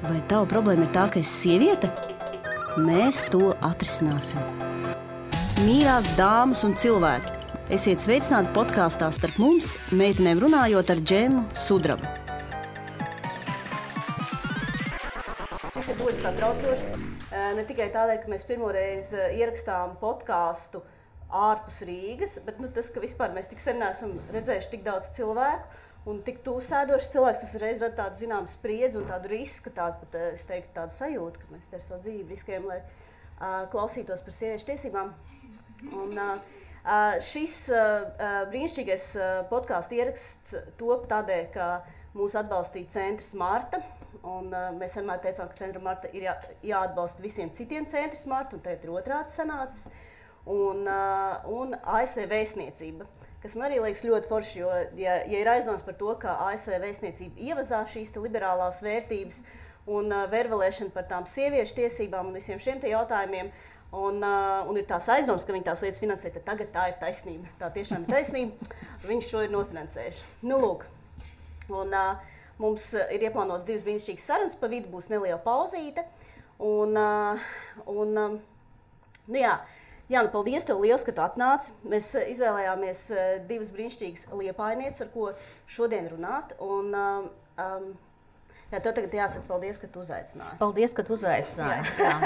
Vai tava problēma ir tā, ka esi sieviete? Mēs to atrisināsim. Mīļās dāmas un cilvēki, esiet sveicināti podkāstā Starp mums, meitenēm runājot ar Džemu Sudrabu. Šis ir ļoti satraucoši. Ne tikai tādēļ, ka mēs pirmoreiz ierakstām podkāstu ārpus Rīgas, bet tas, ka vispār mēs tik sen neesam redzējuši tik daudz cilvēku un tik tuvu sēdoši cilvēks, tas reiz rada tādu zināmu spriedzi un tādu risku, tādu pat, es teiktu, tādu sajūtu, ka mēs te ar savu dzīvi riskējam, lai klausītos par sieviešu tiesībām. Un šis brīnišķīgais podkāstu ieraksts top tādēļ, ka mūs atbalstīja Centrs Marta. Un mēs vienmēr teicām, ka Centra Marta ir jāatbalsta visiem citiem Centrs Marta, un tagad ir otrādi sanācis. Un ASV vēstniecība, kas man arī liekas ļoti forši, jo ja ir aizdoms par to, ka ASV vēstniecība ievazā šīs liberālās vērtības un vervelēšana par tām sieviešu tiesībām un visiem šiem te jautājumiem, un ir tās aizdoms, ka viņi tās lietas finansē, tad tagad tā ir taisnība. Tā tiešām ir taisnība, viņi šo ir nofinansējuši. Nu, lūk. Un mums ir ieplānots 2 brīnišķīgas sarunas, pa vidu būs neliela pauzīte. Nu jā, Jāna, paldies tev liels, ka tu atnāci. Mēs izvēlējāmies 2 brīnišķīgas liepājnieces, ar ko šodien runāt. Un, tev tagad jāsaka paldies, ka tu uzaicināji. Paldies, ka tu uzaicināji. Jā.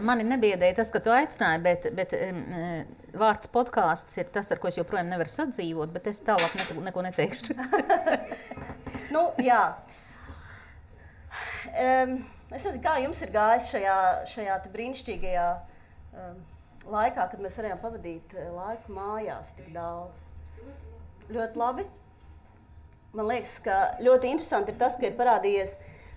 Mani nebiedēja tas, ka tu aicināji, bet vārds podkāsts ir tas, ar ko es joprojām nevaru sadzīvot, bet es tālāk neko neteikšu. Nu, jā. Es nezinu, kā jums ir gājis šajā brīnišķīgajā laikā, kad mēs varējām pavadīt laiku mājās tik daudz. Ļoti labi. Man liekas, ka ļoti interesanti ir tas, ka ir parādījies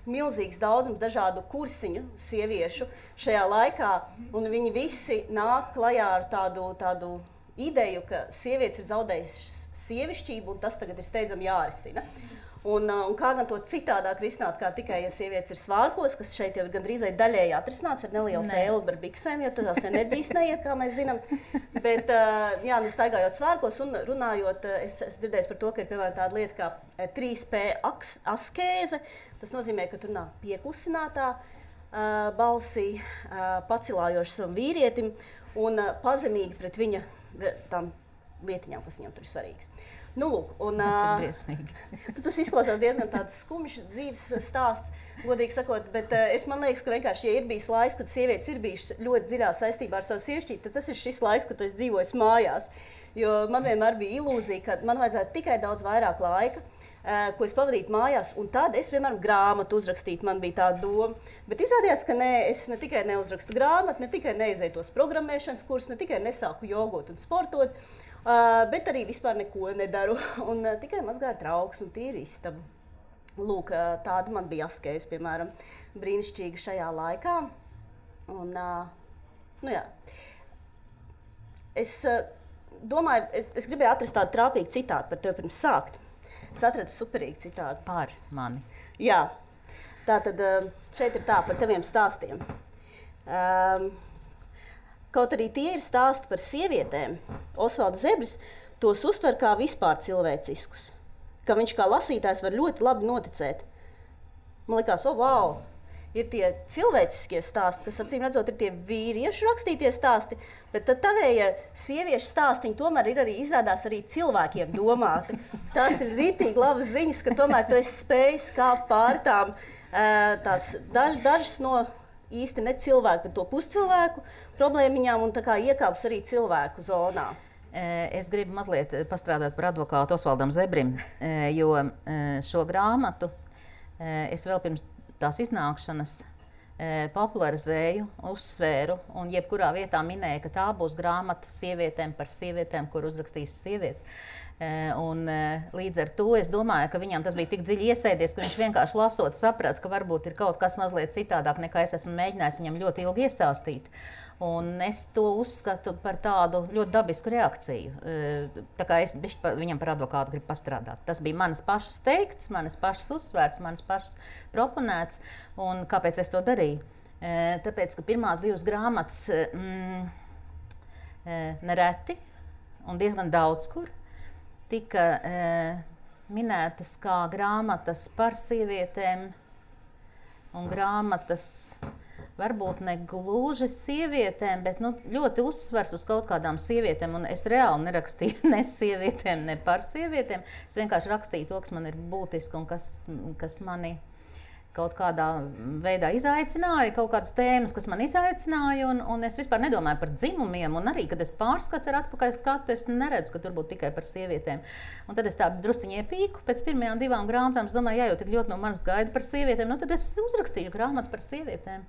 milzīgs daudzums dažādu kursiņu sieviešu šajā laikā, un viņi visi nāk klajā ar tādu ideju, ka sievietes ir zaudējušas sievišķību, un tas tagad ir steidzami jārisina. Un kā gan to citādāk risināt, kā tikai, ja sievietes ir svārkos, kas šeit jau gandrīz daļēji atrisināts ar nelielu fēli par biksēm, jo tās enerģijas neiet, kā mēs zinām. Bet, jā, staigājot svārkos un runājot, es dzirdēju par to, ka ir piemēram tāda lieta kā 3P askēze. Tas nozīmē, ka tu runā pieklusinātā balsī, pacilājoši savam vīrietim un pazemīgi pret viņa tām lietiņām, kas viņam tur ir svarīgas. Nu, lūk, un tas izklausās diezgan tāds skumjš dzīves stāsts, godīgi sakot, bet man liekas, ka vienkārši, ja ir bijis laiks, kad sievietes ir bijušas ļoti dziļā saistībā ar savu sievišķību, tad tas ir šis laiks, kad es dzīvoju mājās. Jo man vienmēr bija ilūzija, ka man vajadzētu tikai daudz vairāk laika, ko es pavadītu mājās, un tad es, piemēram, grāmatu uzrakstītu, man bija tāda doma. Bet izrādījās, ka es ne tikai neuzrakstu grāmatu, ne tikai neizēju tos programmēšanas kursus, ne tikai nesāku jogot un sportot, bet arī vispār neko nedaru, un tikai mazgāju trauks un tīru istabu. Lūk, tāda man bija askēze, piemēram, brīnišķīga šajā laikā. Un, nu jā, es domāju, es gribēju atrast tādu trāpīgu citātu par tevi pirms sākt. Es atradu superīgu citātu. Par mani. Jā, tātad šeit ir tā par taviem stāstiem. Kaut arī tie ir stāsti par sievietēm, Osvalds Zebris tos uztver kā vispār cilvēciskus, ka viņš kā lasītājs var ļoti labi noticēt. Man likās, wow, ir tie cilvēciskie stāsti, kas acīm redzot ir tie vīriešu rakstītie stāsti, bet tad tavējie sieviešu stāstiņi tomēr ir arī izrādās arī cilvēkiem domāti. Tās ir ritīgi labas ziņas, ka tomēr tu esi spējis kāpt pāri tām tās dažas no īsti ne cilvēku, bet to puscilvēku problēmiņām un tā kā iekāpus arī cilvēku zonā. Es gribu mazliet pastrādāt par advokātu Osvaldam Zebrim, jo šo grāmatu es vēl pirms tās iznākšanas popularizēju, uzsvēru un jebkurā vietā minēju, ka tā būs grāmata sievietēm par sievietēm, kur uzrakstīs sievieti. Un līdz ar to es domāju, ka viņam tas bija tik dziļi iesēdies, ka viņš vienkārši lasot saprata, ka varbūt ir kaut kas mazliet citādāk, nekā es esmu mēģinājis viņam ļoti ilgi iestāstīt. Un es to uzskatu par tādu ļoti dabisku reakciju. Tā kā es viņam par advokātu gribu pastrādāt. Tas bija manas pašas teikts, manas pašas uzsvērts, manas pašas proponēts. Un kāpēc es to darīju? Tāpēc, ka pirmās 2 grāmatas nereti un diezgan daudz kur tika minētas kā grāmatas par sievietēm un grāmatas varbūt ne gluži sievietēm, bet ļoti uzsvers uz kaut kādām sievietēm. Un es reāli nerakstīju ne sievietēm, ne par sievietēm. Es vienkārši rakstīju to, kas man ir būtiski un kas mani kaut kādā veidā izaicināja, kaut kādas tēmas, kas man izaicināja. Un es vispār nedomāju par dzimumiem. Un arī, kad es pārskatu ar atpakaļ skatu, es neredzu, ka tur būtu tikai par sievietēm. Un tad es tā drusciņi iepīku pēc pirmajām 2 grāmatām. Es domāju, jau tik ļoti no manis gaida par sievietēm. Nu, tad es uzrakstīju grāmatu par sievietēm.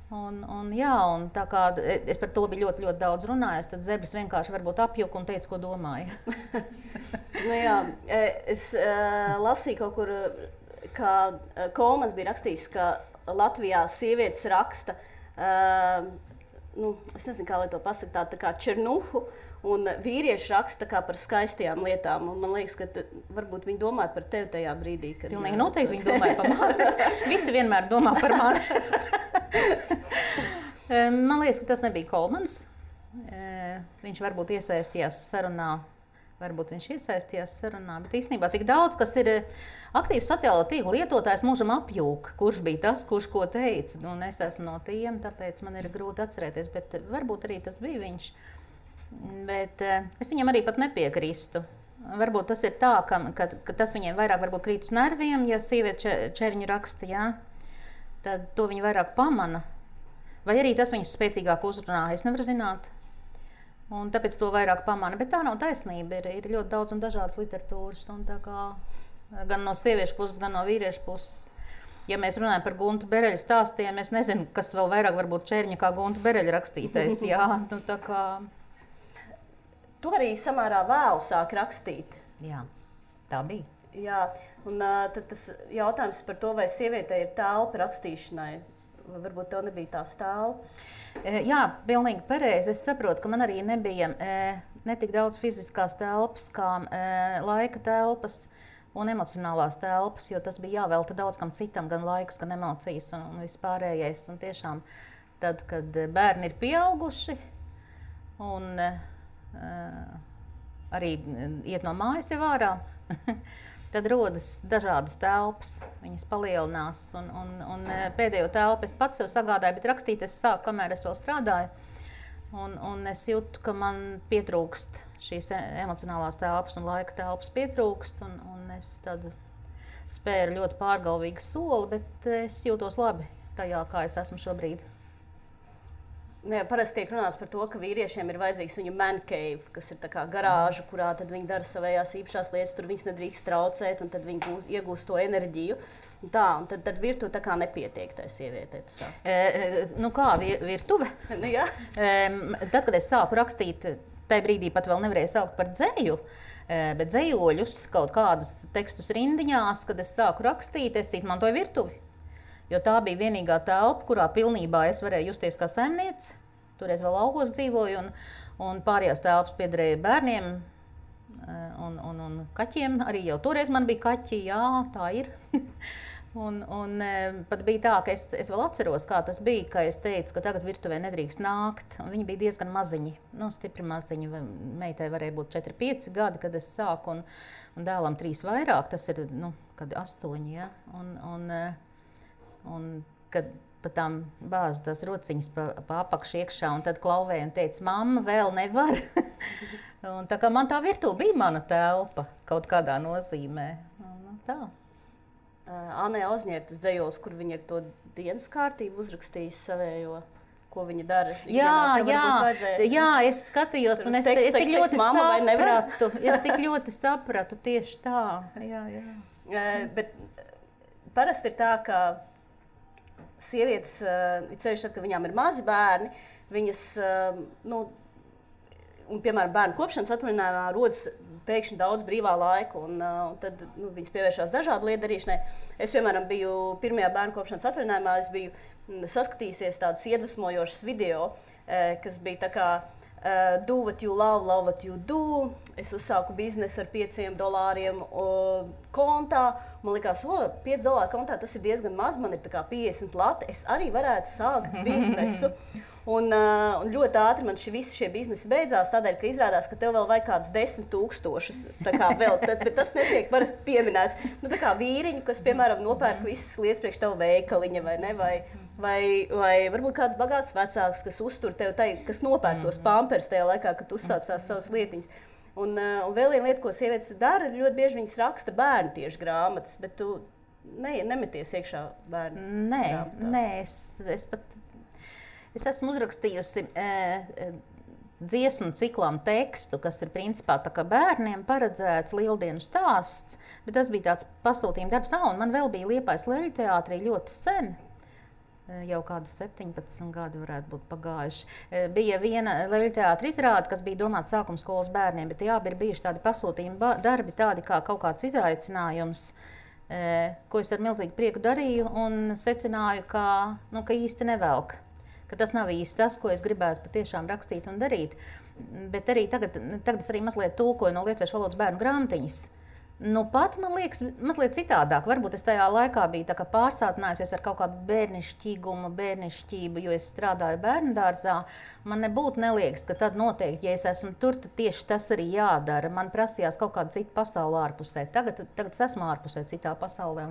Un tā kā es par to biju ļoti, ļoti daudz runājis, tad Zebris vienkārši varbūt apjuka un teica, ko domāja. Es lasīju kaut kur, ka Kolmans bija rakstījis, ka Latvijā sievietes raksta, es nezinu, kā lai to pasaka, tā kā černuhu, un vīrieši raksta kā par skaistajām lietām. Un man liekas, ka varbūt viņi domāja par tevi tajā brīdī. Pilnīgi noteikti viņi domāja par mani. Visi vienmēr domā par mani. Man liekas, ka tas nebija Kolmans. Viņš varbūt iesaistījās sarunā, bet īstenībā tik daudz, kas ir aktīvs sociālo tīklu lietotājs, mūžam apjūk, kurš bija tas, kurš ko teica. Un es esmu no tiem, tāpēc man ir grūti atcerēties, bet varbūt arī tas bija viņš. Bet es viņam arī pat nepiekrīstu. Varbūt tas ir tā, ka tas viņiem vairāk varbūt krīt uz nerviem, ja sieviete čerņu raksta, jā, tad to viņi vairāk pamana. Vai arī tas viņus spēcīgāk uzrunā, es nevaru zināt. Un tāpēc to vairāk pamana. Bet tā nav taisnība. Ir ļoti daudz un dažādas literatūras. Un tā kā, gan no sieviešu puses, gan no vīriešu puses. Ja mēs runājam par Guntu Bereļa stāstiem, es nezinu, kas vēl vairāk varbūt čerņa kā Gunta Bereļa rakstītais. Jā, tā kā... Tu arī samērā vēlu sāki rakstīt. Jā, tā bija. Jā, un tad tas jautājums par to, vai sievietei ir telpa rakstīšanai. Varbūt tev nebija tās telpas? Jā, pilnīgi pareizi. Es saprotu, ka man arī nebija ne tik daudz fiziskās telpas, kā laika telpas un emocionālās telpas, jo tas bija jāvelta daudz kam citam, gan laiks, gan emocijas un vispārējais. Un tiešām tad, kad bērni ir pieauguši un arī iet no mājas jau ārā, tad rodas dažādas telpas, viņas palielinās. Un pēdējo telpu es pats sev sagādāju, bet rakstīt es sāku, kamēr es vēl strādāju. Un es jūtu, ka man pietrūkst šīs emocionālās telpas un laika telpas pietrūkst. Un es tad spēru ļoti pārgalvīgu soli, bet es jūtos labi tajā, kā es esmu šobrīd. Parasti tiek runāts par to, ka vīriešiem ir vajadzīgs viņu man cave, kas ir tā kā garāža, kurā tad viņi dara savējās īpašās lietas, tur viņas nedrīkst traucēt, un tad viņi iegūst to enerģiju. Un tad virtuve tā kā nepietiek tai sievietei, tu saki. Kā virtuve? Jā. Tad, kad es sāku rakstīt, tajā brīdī pat vēl nevarēju saukt par dzeju, bet dzejoļus, kaut kādus tekstus rindiņās, kad es sāku rakstīt, es izmantoju virtuvi. Jo tā bija vienīgā telpa, kurā pilnībā es varēju justies kā saimniece. Toreiz vēl laukos dzīvoju, un pārējās telpas piederēja bērniem un kaķiem. Arī jau toreiz man bija kaķi, jā, tā ir. un pat bija tā, ka es vēl atceros, kā tas bija, ka es teicu, ka tagad virtuvē nedrīkst nākt. Un viņi bija diezgan maziņi, stipri maziņi. Meitai varēja būt 4-5 gadi, kad es sāku, un dēlam 3 vairāk. Tas ir, kad 8, ja? Un kad pa tām bāz tās rociņas pa apakšu iekšā, un tad klauvēja un teica, mamma, vēl nevar. Un tā kā man tā virtuve bija mana telpa kaut kādā nozīmē. Tā. Anē Ozņērtas dzejols, kur viņa ir to dienas kārtību uzrakstījis savējo, ko viņa dara. Jā, es skatījos, un es tik ļoti sapratu tieši tā. Jā. Bet parasti ir tā, ka sievietes, ceļš tad, kad viņām ir mazi bērni, viņas, piemēram, bērnu kopšanas atvaļinājumā rodas pēkšņi daudz brīvā laika, un tad viņas pievēršās dažādu lietu darīšanai. Es, piemēram, biju pirmajā bērnu kopšanas atvaļinājumā, es biju saskatījusies tādus iedvesmojošus video, kas bija tā kā do what you love, love what you do. Es uzsāku biznesu ar $5 kontā. Man likās, $5 kontā tas ir diezgan maz, man ir tā kā 50 lati. Es arī varētu sākt biznesu. Un ļoti ātri man visi šie biznesi beidzās, tādēļ, ka izrādās, ka tev vēl vajag kādus 10 000. Tā kā vēl, bet tas netiek parasti pieminēts. Nu, tā kā vīriņu, kas, piemēram, nopērk visas lietas priekš tev veikaliņa, vai ne? Vai varbūt kāds bagāts vecāks, kas uztur tev, kas nopērk tos pampers tajā laikā, kad uzsāc tās savas lietiņas. Un vēl viena lieta, ko sievietes dara, ļoti bieži viņas raksta bērnu tieši grāmatas, bet tu nemeties iekšā bērnu grāmatās. Nē, es esmu uzrakstījusi dziesmu ciklam tekstu, kas ir principā tā kā bērniem paredzēts lieldienu stāsts, bet tas bija tāds pasūtījuma darbs, un man vēl bija Liepājas Leļu teātrī ļoti sen. Jau kādi 17 gadi varētu būt pagājuši. Bija viena Leļu teātra izrāde, kas bija domāta sākuma skolas bērniem, bet jā, ir bijuši tādi pasūtījumi darbi, tādi kā kaut kāds izaicinājums, ko es ar milzīgu prieku darīju un secināju, ka īsti nevelk. Ka tas nav īsti tas, ko es gribētu patiešām rakstīt un darīt. Bet arī tagad es arī mazliet tulkoju no lietuviešu valodas bērnu grāmatiņas. Nu, pat man liekas, mazliet citādāk. Varbūt es tajā laikā biju pārsātinājusies ar kaut kādu bērnišķību, jo es strādāju bērndārzā. Man nebūtu neliekas, ka tad noteikti, ja es esmu tur, tad tieši tas arī jādara. Man prasījās kaut kāda cita pasaule ārpusē. Tagad es esmu ārpusē citā pasaulē.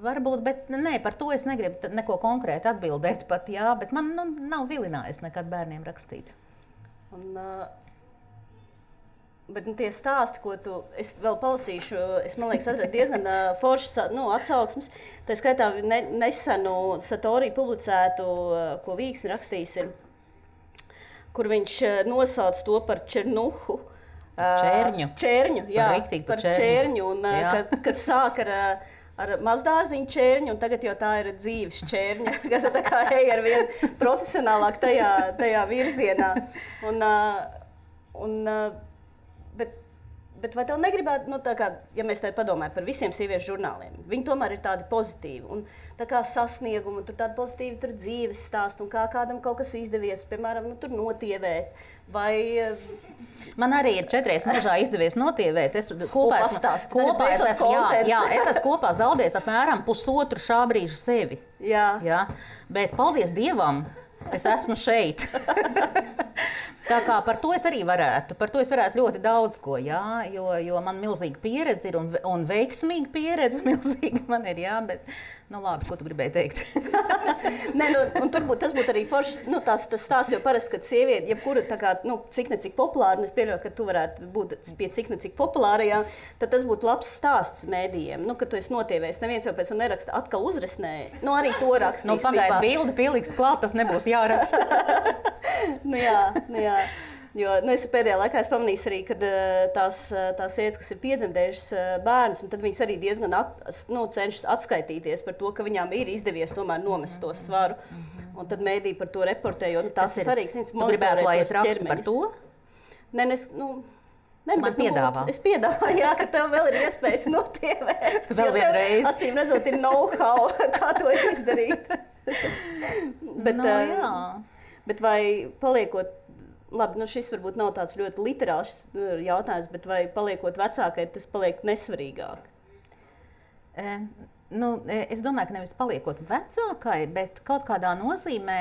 Varbūt, bet nē, par to es negribu neko konkrēti atbildēt pat, jā, bet man nav vilinājis nekad bērniem rakstīt. Bet tie stāsti, ko es vēl palasīšu, es, man liekas, atradu diezgan foršas atsauksmes. Tā skaitā nesenu Satori publicētu, ko Vīksni rakstījis ir, kur viņš nosauc to par Černuhu. Čērņu, jā, par čērņu. Un, kad sāk ar mazdārziņu čērņu, un tagad jau tā ir dzīves čērņa, kas tā kā ej ar vien profesionālāk tajā virzienā. Bet vai tev negribētu, ja mēs tā padomājam par visiem sieviešu žurnāliem, viņi tomēr ir tādi pozitīvi, un tā kā sasniegumi, tur tādi pozitīvi tur dzīves stāsti, un kā kādam kaut kas izdevies, piemēram, tur notievēt, vai... Man arī ir 4 mūžā izdevies notievēt. Es kopā esmu kopā zaudējis apmēram pusotru šā brīža sevi. Jā. Bet paldies Dievam, es esmu šeit. Tā kā par to es arī varētu ļoti daudz ko, jā, jo man milzīga pieredze ir un veiksmīga pieredze milzīga man ir, jā, bet, labi, ko tu gribēji teikt? Nē, un tas būtu arī foršs, tas stāsts, jo parasti, kad sieviete, jebkura tā kā, cik necik populāra, un es pieļauju, ka tu varētu būt pie cik necik populārajā, tad tas būtu labs stāsts mēdījiem, kad tu esi notievējis, neviens jau pēc tam neraksta, atkal uzresnēja, arī to rakstīs. Pagaid bildi pieliks klāt, tas nebūs jāraksta. Jā. Jo es pēdējā laikā pamanīju arī, ka tās sievietes, kas ir piedzemdējušas bērnus, un tad viņas arī diezgan cenšas atskaitīties par to, ka viņām ir izdevies tomēr nomest to svaru. Un tad mēdī par to reportē, jo tas ir svarīgs. Tu gribētu, lai es rakstu par to? Nē, man piedāvā. Es piedāvāju, jā, ka tev vēl ir iespējas notievēt. Tu vēl vienreiz. Acīm redzot, ir know-how, kā to izdarīt. Jā. Bet vai paliekot, labi, šis varbūt nav tāds ļoti literāls jautājums, bet vai paliekot vecākai, tas paliek nesvarīgāk? Es domāju, ka nevis paliekot vecākai, bet kaut kādā nozīmē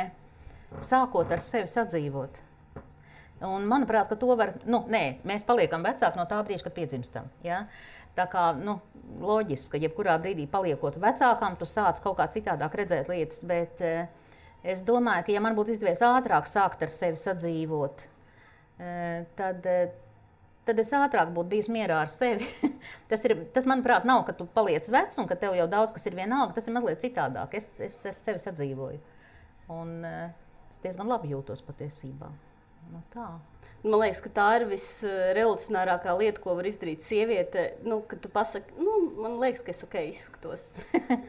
sākot ar sevi sadzīvot. Un manuprāt, ka to var, mēs paliekam vecāki no tā brīža, kad piedzimstam, ja? Tā kā, loģiski, ka jebkurā brīdī paliekot vecākām, tu sāc kaut kā citādāk redzēt lietas, bet es domāju, ka ja man būtu izdevies ātrāk sākt ar sevi sadzīvot, tad es ātrāk būtu bijusi mierā ar sevi. Tas, manuprāt, nav, ka tu paliec vecs un ka tev jau daudz kas ir vienalga, tas ir mazliet citādāk. Es ar sevi sadzīvoju. Un es diezgan labi jūtos patiesībā. Tā. Man liekas, ka tā ir visrevolucionārākā lieta, ko var izdarīt sieviete, kad tu pasaki, man liekas, ka es izskatos.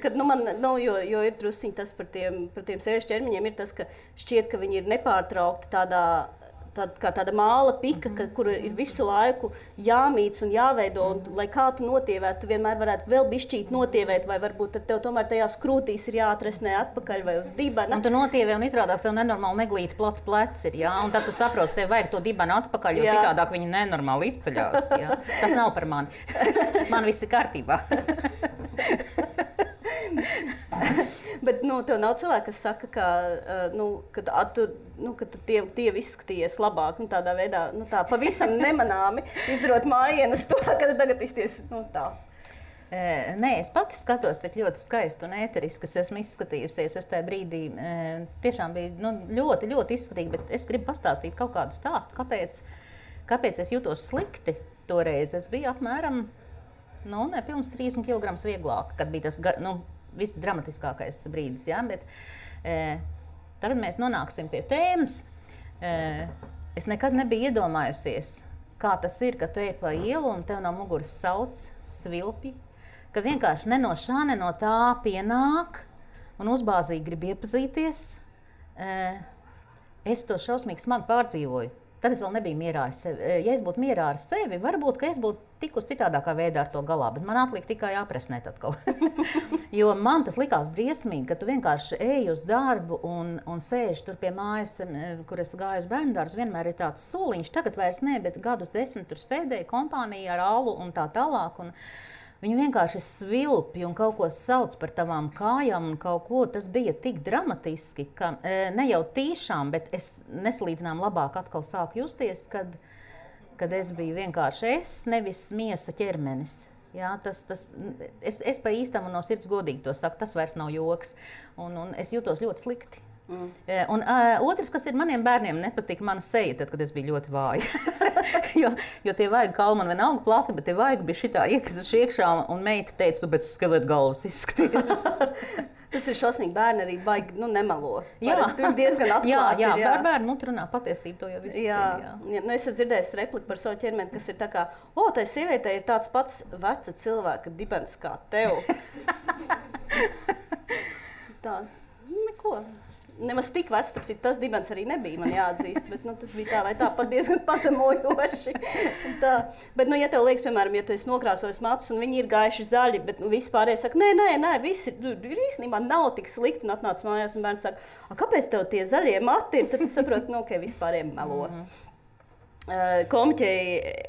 Kad, jo ir drusciņi tas par tiem sieviešu ķermeņiem, ir tas, ka šķiet, ka viņi ir nepārtraukti tāda māla pika, kur ir visu laiku jāmīc un jāveido, un lai kā tu notievētu, tu vienmēr varētu vēl bišķīt notievēt, vai varbūt tad tev tomēr tajās krūtīs ir jāatresnē atpakaļ vai uz dibena. Un tu notievē un izrādās tev nenormāli neglīti plati pleci ir, jā, un tad tu saproti, tev vajag to dibenu atpakaļ, jo citādāk viņi nenormāli izceļās, jā. Tas nav par mani. Man viss ir kārtībā. Bet tev nav cilvēki, kas saka, ka, ka tu tie izskatījies labāk, tādā veidā, tā pavisam nemanāmi izdarot mājienu uz to, ka tagad izties, tā. Nē, es pati skatos, cik ļoti skaisti un ēteriski es esmu izskatījusies. Es tajā brīdī tiešām biju ļoti, ļoti izskatīgi, bet es gribu pastāstīt kaut kādu stāstu, kāpēc es jūtos slikti toreiz. Es biju apmēram, nepilns 30 kg vieglāk, kad bija tas, visdramatiskākais brīdis, jā, bet tagad mēs nonāksim pie tēmas. Es nekad nebiju iedomājusies, kā tas ir, ka tu ej pa ielu un tev no muguras sauc svilpi, ka vienkārši ne no šā, ne no tā pienāk un uzbāzīgi grib iepazīties. Es to šausmīgi smagi pārdzīvoju. Tad es vēl nebiju mierā ar sevi. Ja es būtu mierā ar sevi, varbūt, ka es būtu tikus citādākā veidā ar to galā, bet man atliek tikai jāpresnēt atkal. Jo man tas likās briesmīgi, ka tu vienkārši ej uz darbu un sēž tur pie mājas, kur es gāju uz bērndārzu, vienmēr ir tāds soliņš, tagad vairs ne, bet gadus 10 tur sēdēja kompānija ar alu un tā tālāk. Viņi vienkārši svilpi un kaut ko sauc par tavām kājām un kaut ko. Tas bija tik dramatiski, ka ne jau tīšām, bet es nesalīdzinām labāk atkal sāku justies, kad es biju vienkārši es, nevis miesa ķermenis. Jā, es pa īstam un no sirds godīgi to saku, tas vairs nav joks. Un es jūtos ļoti slikti. Un otrs, kas ir maniem bērniem, nepatika mana seja, tad, kad es biju ļoti vāja. jo tie vajag kauli man vienalga plati, bet tie vajag bija šitā iekrituši iekšā, un meita teica, tu pēc skeleta galvas izskaties. Tas ir šausmīgi, bērni arī baigi, nemelo. Parasti ir diezgan atklāti. Jā, bērni muti runā patiesību, to jau visi jā. Es esmu dzirdējis repliku par savu ķermeni, kas ir tā kā, tai sievietei ir tāds pats veca cilvēka dibens kā tev. Tā, neko. Nemaz tik vecs, tas dibens arī nebija, man jāatzīst, bet tas bija tā vai tā pat diezgan pazemojoši. Bet, ja tev liekas, piemēram, ja tu esi nokrāsojis matus un viņi ir gaiši zaļi, bet visi pārējie saka, nē, visi ir īstenībā nav tik slikti, un atnāc mājās un bērns saka, kāpēc tev tie zaļie mati ir? Tad tu saproti, ka vispārējiem melo. Komiķei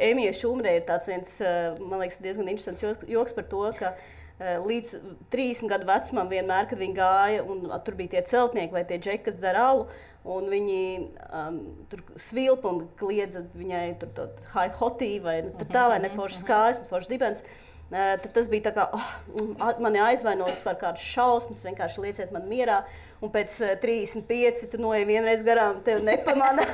Emijai Šumrei ir tāds viens, man liekas, diezgan interesants joks par to, ka līdz 30 gadu vecumam vienmēr, kad viņi gāja, un tur bija tie celtnieki vai tie džeki, kas dzer alu, un viņi tur svilpa un kliedza viņai tur hi hotī vai tā vai ne foršas kājas un foršas dibens. Tad tas bija tā kā, mani aizvainojas par kādu šausmas, vienkārši lieciet man mierā, un pēc 35 tu noej vienreiz garām, tev nepamana,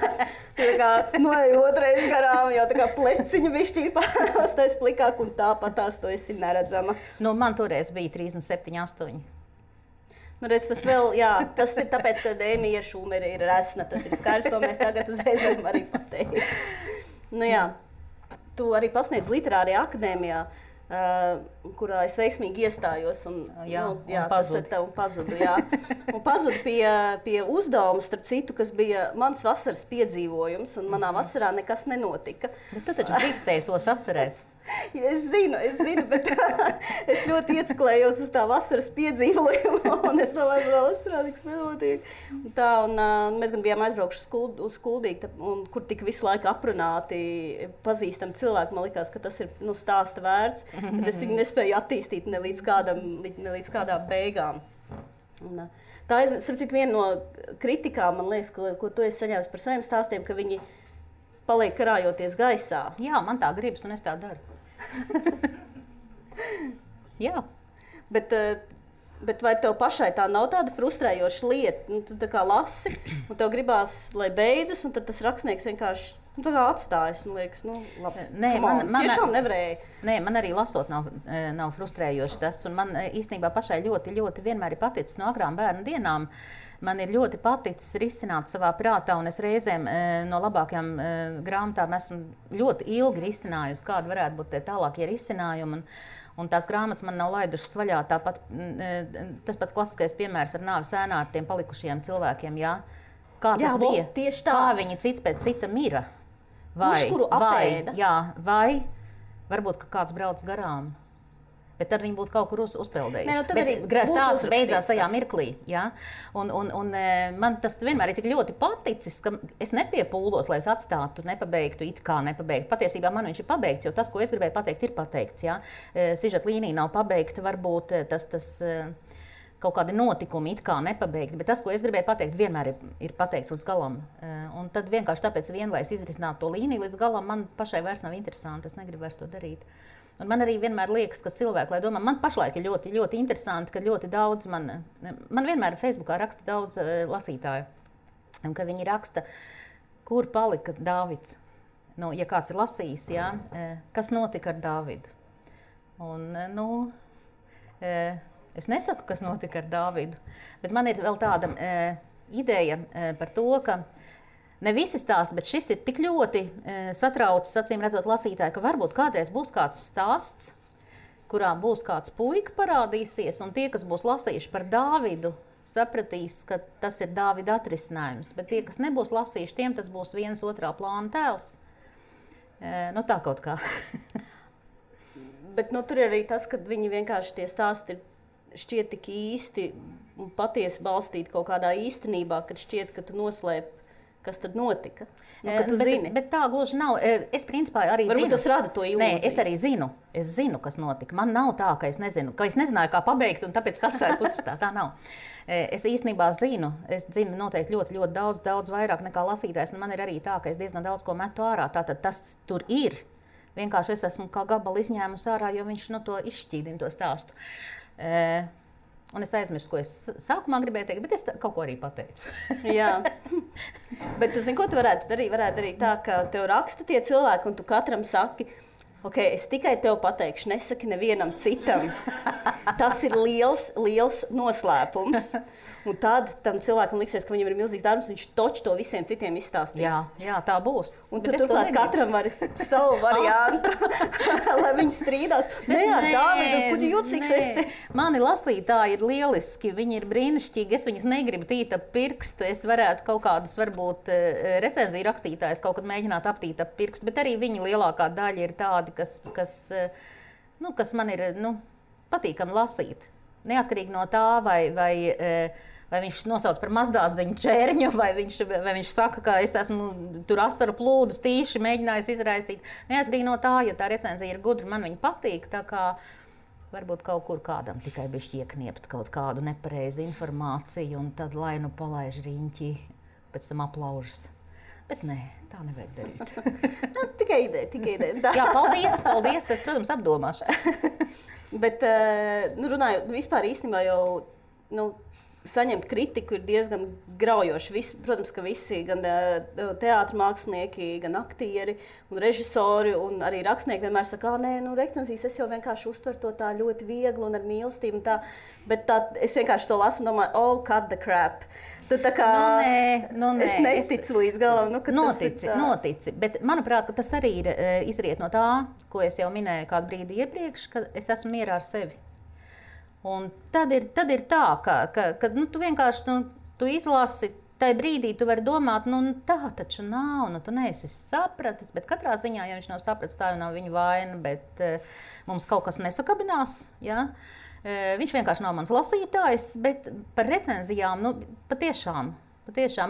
tu tā kā noej otrais garām, jau tā kā pleciņa bišķī pastais plikāk, un tāpatās tu esi neredzama. Man toreiz bija 37, 8. Redz, tas vēl, tas ir tāpēc, ka Emija Šumere ir resna, tas ir skaidrs, to mēs tagad uzreiz varam arī pateikt. Tu arī pasniedz literārajā akadēmijā, kurā es veiksmīgi iestājos un pazudu. Un pazudu pie uzdevuma, starp citu, kas bija mans vasaras piedzīvojums, un manā vasarā nekas nenotika. Bet tu taču drīkstēji tos atcerēt. Es zinu, bet es ļoti ieciklējos uz tā vasaras piedzīvojumu, un es domāju, ka vasarā nekas nenotiek. Mēs gan bijām aizbraukuši uz Kuldīgu, kur tika visu laiku aprunāti pazīstami cilvēki. Man likās, ka tas ir stāsta vērts, bet es viņu nespēju attīstīt ne līdz kādām beigām. Tā ir, starp citu, viena no kritikām, man liekas, ko tu esi saņēmis par saviem stāstiem, ka viņi paliek karājoties gaisā. Jā, man tā gribas, un es tā daru. Jā. Bet vai tev pašai tā nav tāda frustrējoša lieta? Tu tā kā lasi, un tev gribās, lai beidzas, un tad tas rakstnieks vienkārši tā kā atstājas, un liekas, labi, tiešām nevarēja. Nē, man arī lasot nav frustrējoši tas, un man īstenībā pašai ļoti, ļoti vienmēr ir paticis no agrām bērnu dienām. Man ir ļoti paticis risināt savā prātā, un es reizēm no labākajām grāmatām esmu ļoti ilgi risinājusi, kāda varētu būt tie tālākie risinājumi. Un tās grāmatas man nav laidušas vaļā. Tāpat tas pats klasiskais piemērs ar nāves ēnā ar tiem palikušajiem cilvēkiem. Jā? Kā tas bija? Tieši tā. Kā viņi cits pēc cita mira? Kuru apēda? Vai varbūt kāds brauc garām? Bet tad viņi būtu kaut kur uzpeldējuši. Stāsts beidzās tajā mirklī. Ja? Un man tas vienmēr ir tik ļoti paticis, ka es nepiepūlos, lai es atstātu, nepabeigtu, it kā nepabeigtu. Patiesībā man viņš ir pabeigts, jo tas, ko es gribēju pateikt, ir pateikts. Ja? Sižeta līnija nav pabeigta, varbūt tas kaut kādi notikumi it kā nepabeigti, bet tas, ko es gribēju pateikt, vienmēr ir pateikts līdz galam. Un tad vienkārši tāpēc vien, lai es izrisinātu to līniju līdz galam, man pašai vairs nav interesanti, es negribu vairs to darīt. Un man arī vienmēr liekas, ka cilvēki, lai domā, man pašlaik ir ļoti, ļoti interesanti, ka ļoti daudz man vienmēr Facebookā raksta daudz lasītāju, un ka viņi raksta, kur palika Dāvids. Nu, ja kāds ir lasījis, jā, kas notika ar Dāvidu. Un, es nesaku, kas notika ar Dāvidu, bet man ir vēl tāda ideja par to, ka ne visi stāsti, bet šis ir tik ļoti satraucis, acīm redzot lasītāji, ka varbūt kādreiz būs kāds stāsts, kurā būs kāds puika parādīsies, un tie, kas būs lasījuši par Dāvidu, sapratīs, ka tas ir Dāvida atrisinājums, bet tie, kas nebūs lasījuši, tiem tas būs viens otrā plāna tēls. Nu tā kaut kā. Bet tur ir arī tas, ka viņi vienkārši tie stāsti šķiet tik īsti un patiesi balstīti kaut kādā īstenībā, kad šķiet, ka tu noslēp, kas tad notika. Ka tu zini. Bet tā gluži nav. Es principā arī Varbūt zinu. Tas rada to ilūziju. Nē, es arī zinu. Es zinu, kas notika. Man nav tā, ka es nezinu, ka es nezināju, kā pabeigt, un tāpēc atstāju pusratā. Tā nav. Es īstenībā zinu. Es zinu noteikti ļoti, ļoti daudz vairāk nekā lasītājs, un man ir arī tā, ka es diezgan daudz ko metu ārā. Tātad tas tur ir. Vienkārši es esmu kā gabalu izņēmusi ārā, jo viņš to izšķīdina to stāstu. Un es aizmirsu, ko es sākumā gribēju teikt, bet es kaut ko arī pateicu. Jā. Bet tu zini, ko tu varētu darīt tā, ka tev raksta tie cilvēki, un tu katram saki, ok, es tikai tev pateikšu, nesaki nevienam citam. Tas ir liels noslēpums. Un tad tam cilvēkam liksies, ka viņam ir milzīgs darbs, viņš toči to visiem citiem izstāstīs. Jā, tā būs. Un tu turklāt katram var savu variantu, lai viņi strīdās. Nē, ar Dāvidu, kuģi jūtīgs esi. Mani lasītāji ir lieliski, viņi ir brīnišķīgi, es viņus negribu tīt ap pirkstu, es varētu kaut kādus, varbūt, recenziju rakstītājus kaut kad mēģināt aptīt ap pirkstu, bet arī viņi lielākā daļa ir tādi, kas man ir, patīkami lasīt. Neatkarīgi no tā, vai viņš nosauc par mazdāziņu čērņu, vai viņš saka, ka es esmu tur asaru plūdus tīši mēģinājis izraisīt. Neatkarīgi no tā, ja tā recenzija ir gudra, man viņa patīk, tā kā varbūt kaut kur kādam tikai bišķi iekniept kaut kādu nepareizu informāciju, un tad lai palaiž riņķi, pēc tam aplaužas. Bet nē, tā nevajag darīt. Tikai ideja. Jā, paldies, es, protams, apdomāšu. Bet, runājot, vispār īstenībā jau, saņemt kritiku ir diezgan graujoši. Protams, ka visi, gan teātra mākslinieki, gan aktieri un režisori un arī rakstnieki vienmēr saka, recenzijas es jau vienkārši uztveru to tā ļoti viegli un ar mīlestību un tā. Bet es vienkārši to lasu un domāju, cut the crap. Tu tā kā, es neticu līdz galam. Notici. Bet manuprāt, ka tas arī ir izriet no tā, ko es jau minēju kādu brīdi iepriekš, ka es esmu mierā ar sevi. Un tad ir tā, ka tu vienkārši tu izlasi, tajā brīdī tu vari domāt, tā taču nav, tu neesi sapratis, bet katrā ziņā, ja viņš nav sapratis, tā jau nav viņa vaina, bet mums kaut kas nesakabinās, ja? Viņš vienkārši nav mans lasītājs, bet par recenzijām, patiešām,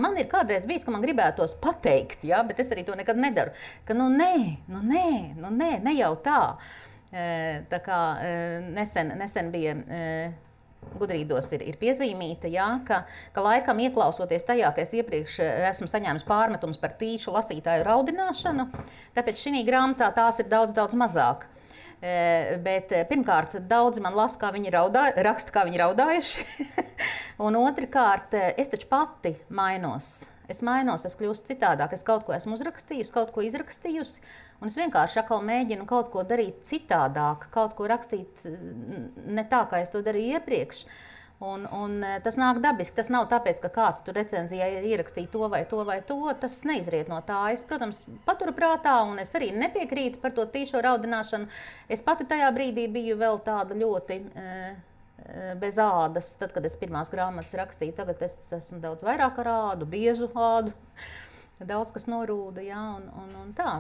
man ir kādreiz bijis, ka man gribētos pateikt, ja? Bet es arī to nekad nedaru, ka ne jau tā. Tā kā nesen bija Gudrīdos ir piezīmīta, ja, ka laikam ieklausoties tajā, ka es iepriekš esmu saņēmis pārmetums par tīšu lasītāju raudināšanu, tāpēc šī grāmatā tās ir daudz mazāk. Bet pirmkārt, daudzi man lasa, kā viņi raksta, kā viņi raudājuši, un otrkārt, es taču pati mainos. Es kļūstu citādāk, es kaut ko esmu uzrakstījusi, kaut ko izrakstījusi, un es vienkārši atkal mēģinu kaut ko darīt citādāk, kaut ko rakstīt ne tā, kā es to darīju iepriekš. Un tas nāk dabiski, tas nav tāpēc, ka kāds tur recenzijā ierakstīja to vai to, tas neizriet no tā. Es, protams, paturu prātā, un es arī nepiekrītu par to tīšo raudināšanu. Es pati tajā brīdī biju vēl tāda ļoti bez ādas, tad, kad es pirmās grāmatas rakstīju. Tagad es esmu daudz vairāk ar ādu, biežu ādu, daudz kas norūda, jā, un tā.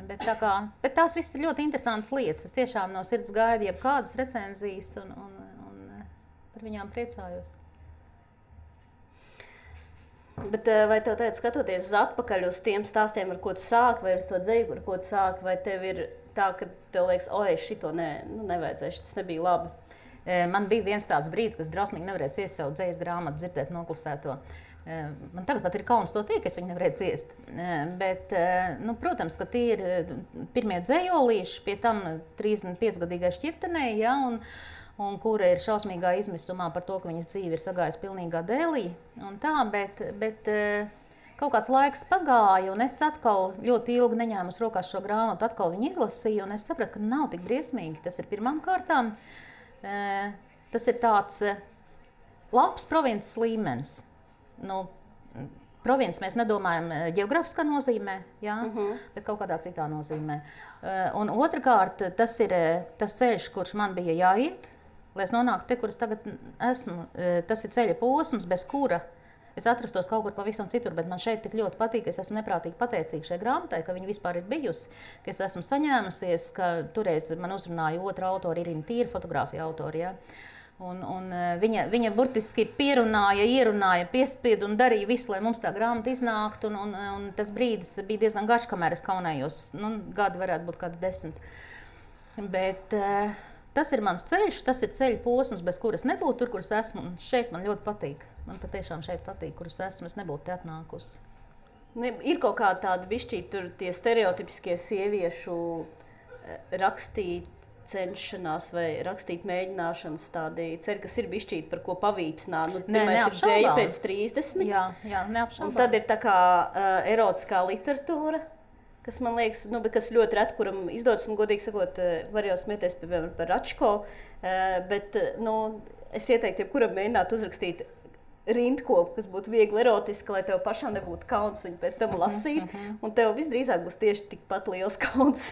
Bet tās viss ir ļoti interesantas lietas. Es tiešām no sirds gaidu jebkādas recenzijas un par viņām priecājos. Bet vai tev teica, skatoties atpakaļ uz tiem stāstiem, ar ko tu sāki, vai uz to dzeju, ar ko tu sāki, vai tev ir tā, ka tev liekas, šito nevajadzēja, tas nebija labi? Man bija viens tāds brīdis, kas drausmīgi nevarēja ciest savu dzējas grāmatu, dzirdēt noklusēto. Man tagad pat ir kauns to teikt, es viņu nevarēju ciest. Bet, nu, protams, ka tie ir pirmie dzējolīši, pie tam 35-gadīgai šķirtenei, ja, un kura ir šausmīgā izmisumā par to, ka viņas dzīve ir sagājusi pilnīgā dēlī. Un tā, bet kaut kāds laiks pagāja, un es atkal ļoti ilgi neņēmu rokās šo grāmatu, atkal viņu izlasīju, un es sapratu, ka nav tik briesmīgi. Tas ir pirmām kārtām. Tas ir tāds labs provinces līmenis. Nu, provinces mēs nedomājam ģeogrāfiskā nozīmē, jā, bet kaut kādā citā nozīmē. Un otrkārt, tas ir tas ceļš, kurš man bija jāiet, lai es nonāktu te, kur es tagad esmu. Tas ir ceļa posms, bez kura es atrastos kaut kur pavisam citur, bet man šeit tik ļoti patīk, ka es esmu neprātīgi pateicīga šai grāmatai, ka viņa vispār ir bijusi, ka es esmu saņēmusies, ka toreiz man uzrunāja otra autora, Irina Tīra, fotogrāfija autora, ja? Un viņa burtiski pierunāja, ierunāja, piespieda un darīja visu, lai mums tā grāmata iznāktu, un tas brīdis bija diezgan garš, kamēr es kaunējos, nu, gadi varētu būt kādi 10. Bet tas ir mans ceļš, tas ir ceļa posms, bez kuras nebūtu tur, kur es esmu, un šeit man ļoti patīk. Man patiešām šeit patīk, kur es esmu, es nebūtu te atnākusi. Ir kaut kā tāda bišķīt tur tie stereotipiskie sieviešu rakstīt cenšanās vai rakstīt mēģināšanas tādi ceļi, kas ir bišķīt par ko pavīpsnā. Nu, pirmais ir dzēja pēc 30. Jā, neapšaubām. Un tad ir tā kā erotiskā literatūra, kas man liekas, nu, kas ļoti reti, kuram izdodas, un godīgi sakot, var jau smieties, piemēram, par Račko, bet, nu, es ieteiktu, jebkuram mēģināt uzrakstīt rindkopu, kas būtu viegli erotiska, lai tev pašām nebūtu kauns viņu pēc tam lasīt, un tev visdrīzāk būs tieši tikpat liels kauns.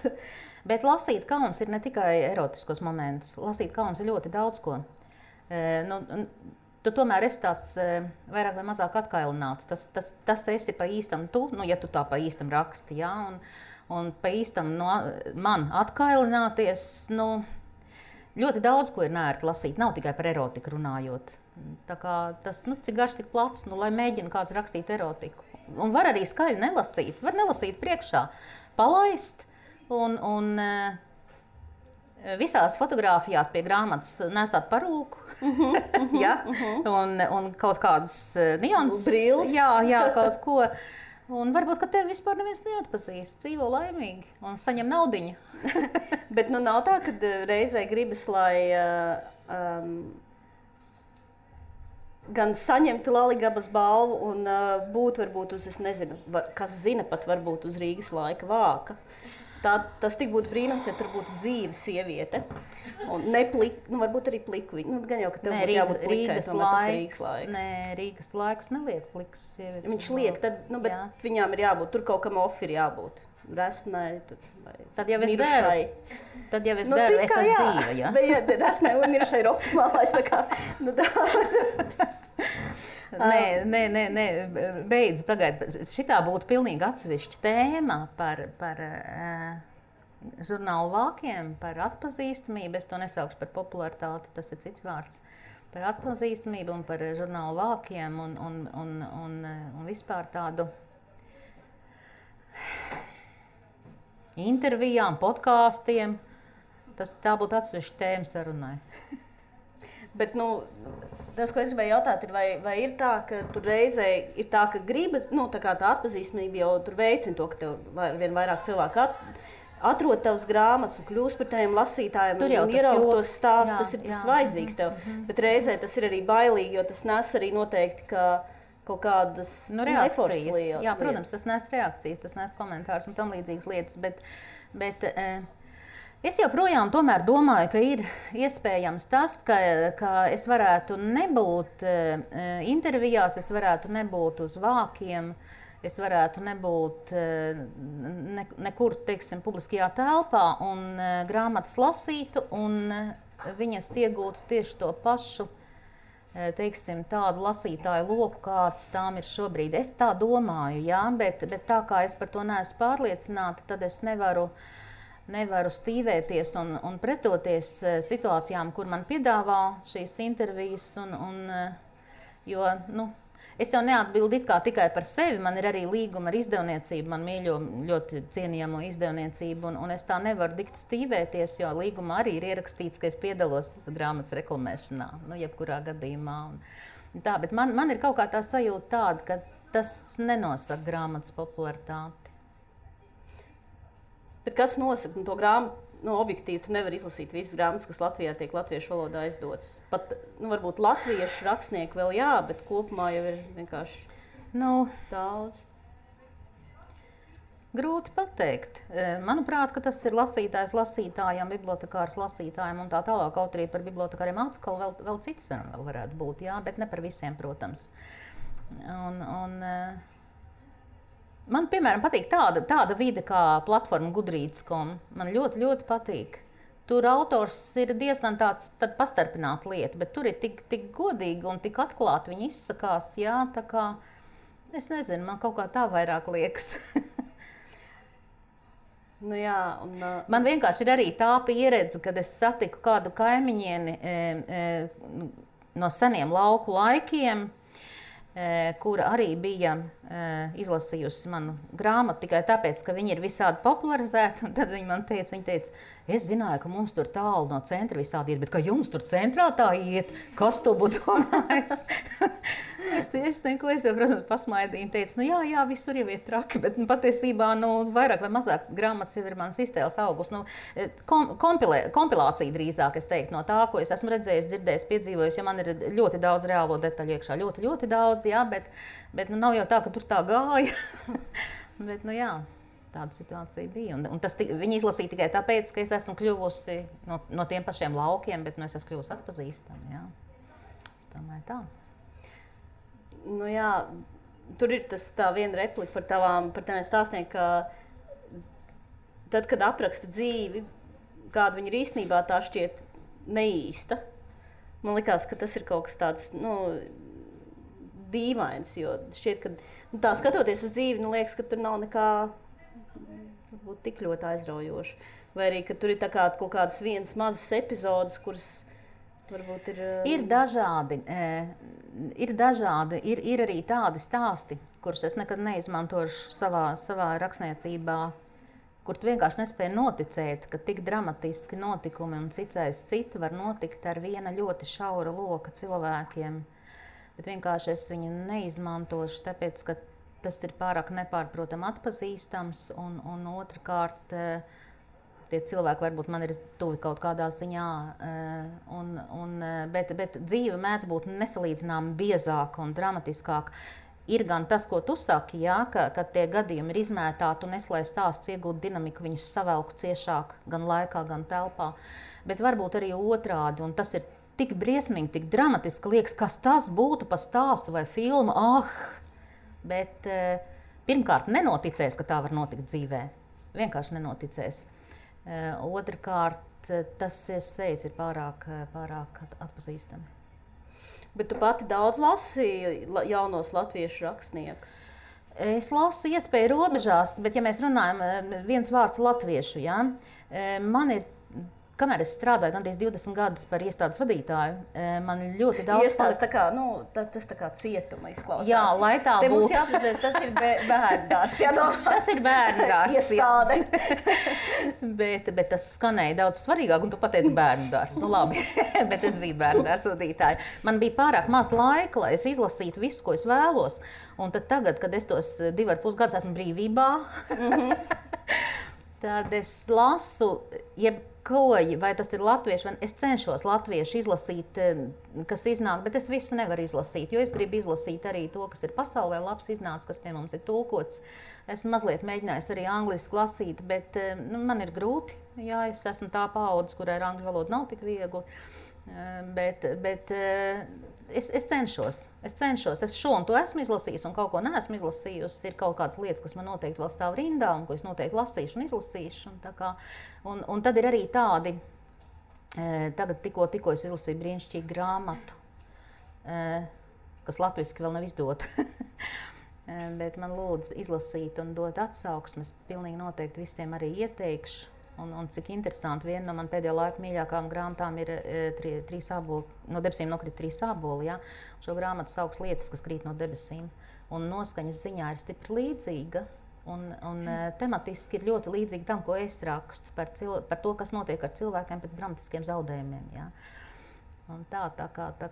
Bet lasīt kauns ir ne tikai erotiskos momentus, lasīt kauns ir ļoti daudz ko. Tu tomēr esi tāds vairāk vai mazāk atkailināts, tas esi pa īstam tu, nu, ja tu tā pa īstam raksti, jā, un pa īstam man atkailināties, nu, ļoti daudz ko ir neērti lasīt, nav tikai par erotiku runājot. Tā kā tas, nu, cik garš, tik plats, nu, lai mēģina kāds rakstīt erotiku. Un var arī skaļi nelasīt, var nelasīt priekšā, palaist, un visās fotogrāfijās pie grāmatas nesāt parūku, ja? Un kaut kādas nianses. Brilles. Jā, kaut ko. Un varbūt, ka tevi vispār neviens neatpazīst, dzīvo laimīgi un saņem naudiņu. Bet nu nav tā, ka reizē gribas, lai gan saņemtu Laligabas balvu un būt varbūt uz, es nezinu, kas zina pat varbūt uz Rīgas laika vāka. Tas tik būtu brīnums, ja tur būtu dzīva sieviete. Un ne plika, nu varbūt arī pliku viņa. Nu, gan jau, ka tev būtu jābūt plikai, tomēr tas ir Rīgas laiks. Nē, Rīgas laiks neliek plikas sievietes. Viņš liek, tad, nu, bet jā. Viņām ir jābūt, tur kaut kam ofi ir jābūt. Resnai, tur, vai tad jau es mirušai. Tad jau es deru, es esmu dzīva, ja? Bet resnai un mirušai ir optimālais, tā kā, nu tā. Nē, beidz, pagaid. Šitā būtu pilnīgi atsevišķa tēma par žurnālu vākiem, par atpazīstamību. Es to nesaukšu par popularitāti, tas ir cits vārds. Par atpazīstamību un par žurnālu vākiem un vispār tādu intervijām, podkāstiem. Tā būtu atsevišķa tēma sarunai. Bet, nu, tas, ko es gribēju jautāt, ir, vai ir tā, ka tur reizē ir tā, ka gribas, nu, tā kā tā atpazīstamība jau tur veicina to, ka tev vien vairāk cilvēku atrod tavas grāmatas un kļūst par taviem lasītājiem un ieraug tos stāstus, tas ir tas vajadzīgs tev. Bet reizē tas ir arī bailīgi, jo tas nes arī noteikti, ka kaut kādas neforšas lietas. Jā, protams, tas nes reakcijas, tas nes komentārus un tam līdzīgas lietas, bet es joprojām tomēr domāju, ka ir iespējams tas, ka es varētu nebūt intervijās, es varētu nebūt uz vākiem, es varētu nebūt nekur, teiksim, publiskajā telpā un grāmatas lasītu un viņas iegūtu tieši to pašu, teiksim, tādu lasītāju loku, kāds tām ir šobrīd. Es tā domāju, jā, bet tā kā es par to neesmu pārliecināta, tad es nevaru stīvēties un pretoties situācijām, kur man piedāvā šīs intervijas, jo, nu, Es jau neatbildu it kā tikai par sevi, man ir arī līguma ar izdevniecību, man mīļo ļoti cienījamo izdevniecību, un es tā nevaru dikti stīvēties, jo līgumā arī ir ierakstīts, ka es piedalos grāmatas reklamēšanā, jebkurā gadījumā. Tā, bet man ir kaut kā tā sajūta tāda, ka tas nenosaka grāmatas popularitāti. Bet kas nosaka to grāmatu? Objektīvi tu nevari izlasīt visas grāmatas, kas Latvijā tiek latviešu valodā izdotas. Pat, varbūt latviešu rakstnieki vēl jā, bet kopumā jau ir vienkārši daudz. Grūti pateikt. Manuprāt, ka tas ir lasītājs lasītājam, bibliotekārs lasītājam un tā tālāk, kaut arī par bibliotekāriem atkal vēl cits vēl varētu būt, jā, bet ne par visiem, protams. Man, piemēram, patīk tāda vide kā platforma Goodreads.com. Man ļoti, ļoti patīk. Tur autors ir diezgan tāds pastarpināta lieta, bet tur ir tik godīgi un tik atklāti viņi izsakās, jā, tā kā, es nezinu, man kaut kā tā vairāk liekas. Man vienkārši ir arī tā pieredze, kad es satiku kādu kaimiņieni no seniem lauku laikiem, kura arī bija izlasījusi manu grāmatu tikai tāpēc, ka viņi ir visādi popularizēti. Un tad viņa teica, es zināju, ka mums tur tālu no centra visādi iet, bet ka jums tur centrā tā iet, kas to būtu domājis? Es jau, protams, pasmaidīju un teicu, jā, visur jau iet traki, bet patiesībā, vairāk vai mazāk grāmatas jau ir mans iztēles augurs. Kompilācija drīzāk, es teiktu, no tā, ko es esmu redzējis, dzirdējis, piedzīvojis, jo man ir ļoti daudz reālo detaļu iekšā, ļoti, ļoti daudz, jā, bet nav jau tā, ka tur tā gāja. Bet, jā, tāda situācija bija. Un viņi izlasīja tikai tāpēc, ka es esmu kļuvusi no tiem pašiem laukiem, bet es esmu kļuvusi atpazīstama, jā. Es domāju tā. Jā, tur ir tā viena replika par taviem stāstiem, ka tad, kad apraksta dzīvi, kāda viņa ir īstenībā, tā šķiet neīsta. Man likās, ka tas ir kaut kas tāds, dīvains, jo šķiet, ka tā skatoties uz dzīvi, liekas, ka tur nav nekā varbūt tik ļoti aizraujoši. Vai arī, ka tur ir kaut kādas vienas mazas epizodes, kuras varbūt ir... Ir dažādi. Ir arī tādi stāsti, kurus es nekad neizmantošu savā rakstniecībā, kur tu vienkārši nespēji noticēt, ka tik dramatiski notikumi un cits aiz cita var notikt ar viena ļoti šaura loka cilvēkiem. Bet vienkārši es viņu neizmantošu, tāpēc, ka tas ir pārāk nepārprotam atpazīstams, un otrkārt, tie cilvēki varbūt man ir tuvi kaut kādā ziņā, bet dzīve mēdz būt nesalīdzināmi biezāka un dramatiskāka. Ir gan tas, ko tu saki, jā, ka tie gadījumi ir izmētāti un es, lai stāsts iegūtu dinamiku, viņus savelku ciešāk gan laikā, gan telpā. Bet varbūt arī otrādi, un tas ir tik briesmīgi, tik dramatiski liekas, kas tas būtu pa stāstu vai filmu, bet pirmkārt nenoticēs, ka tā var notikt dzīvē. Vienkārši nenoticēs. Otrkārt, tas, es teicu, ir pārāk atpazīstami. Bet tu pati daudz lasi jaunos latviešu rakstniekus? Es lasu iespēju robežās, bet ja mēs runājam viens vārds latviešu, jā, man ir, kamēr es strādāju gandrīz 20 gadus par iestādes vadītāju, man ļoti daudz... Iestādes tas tā kā cietuma izklausās. Jā, lai tā būtu. Te mums jāprecēs, tas ir bērndārs. Tas ir bērndārs, iestāde. Bet tas skanēja daudz svarīgāk, un tu pateici bērndārs. Labi, bet es biju bērndārs vadītāja. Man bija pārāk maz laika, lai es izlasītu visu, ko es vēlos. Un tad tagad, kad es tos 2,5 gadus esmu brīvībā, tad es lasu, vai tas ir latviešu, vai es cenšos latviešu izlasīt, kas iznāk, bet es visu nevaru izlasīt, jo es gribu izlasīt arī to, kas ir pasaulē labs iznācis, kas pie mums ir tulkots. Esmu mazliet mēģinājis arī angliski lasīt, bet man ir grūti, jā, es esmu tā paudze, kurai ar angļu valodu nav tik viegli, bet es cenšos. Es šo un to esmu izlasījis un kaut ko neesmu izlasījusi. Ir kaut kādas lietas, kas man noteikti vēl stāv rindā un ko es noteikti lasīšu un izlasīšu. Un tad ir arī tādi, tagad tikko es izlasīju brīnišķīgu grāmatu, kas latviski vēl nav izdota. Bet man lūdzu izlasīt un dot atsauksmes. Pilnīgi noteikti visiem arī ieteikšu. Un cik interesanti, viena no man pēdējo laiku mīļākām grāmatām ir trīs āboli, no debesīm nokrīt 3 āboli, ja? Šo grāmatu sauc Lietas, kas krīt no debesīm. Un noskaņas ziņā ir stipri līdzīga. Un tematiski ir ļoti līdzīgi tam, ko es rakstu par to, kas notiek ar cilvēkiem pēc dramatiskiem zaudējumiem. Ja? Un tā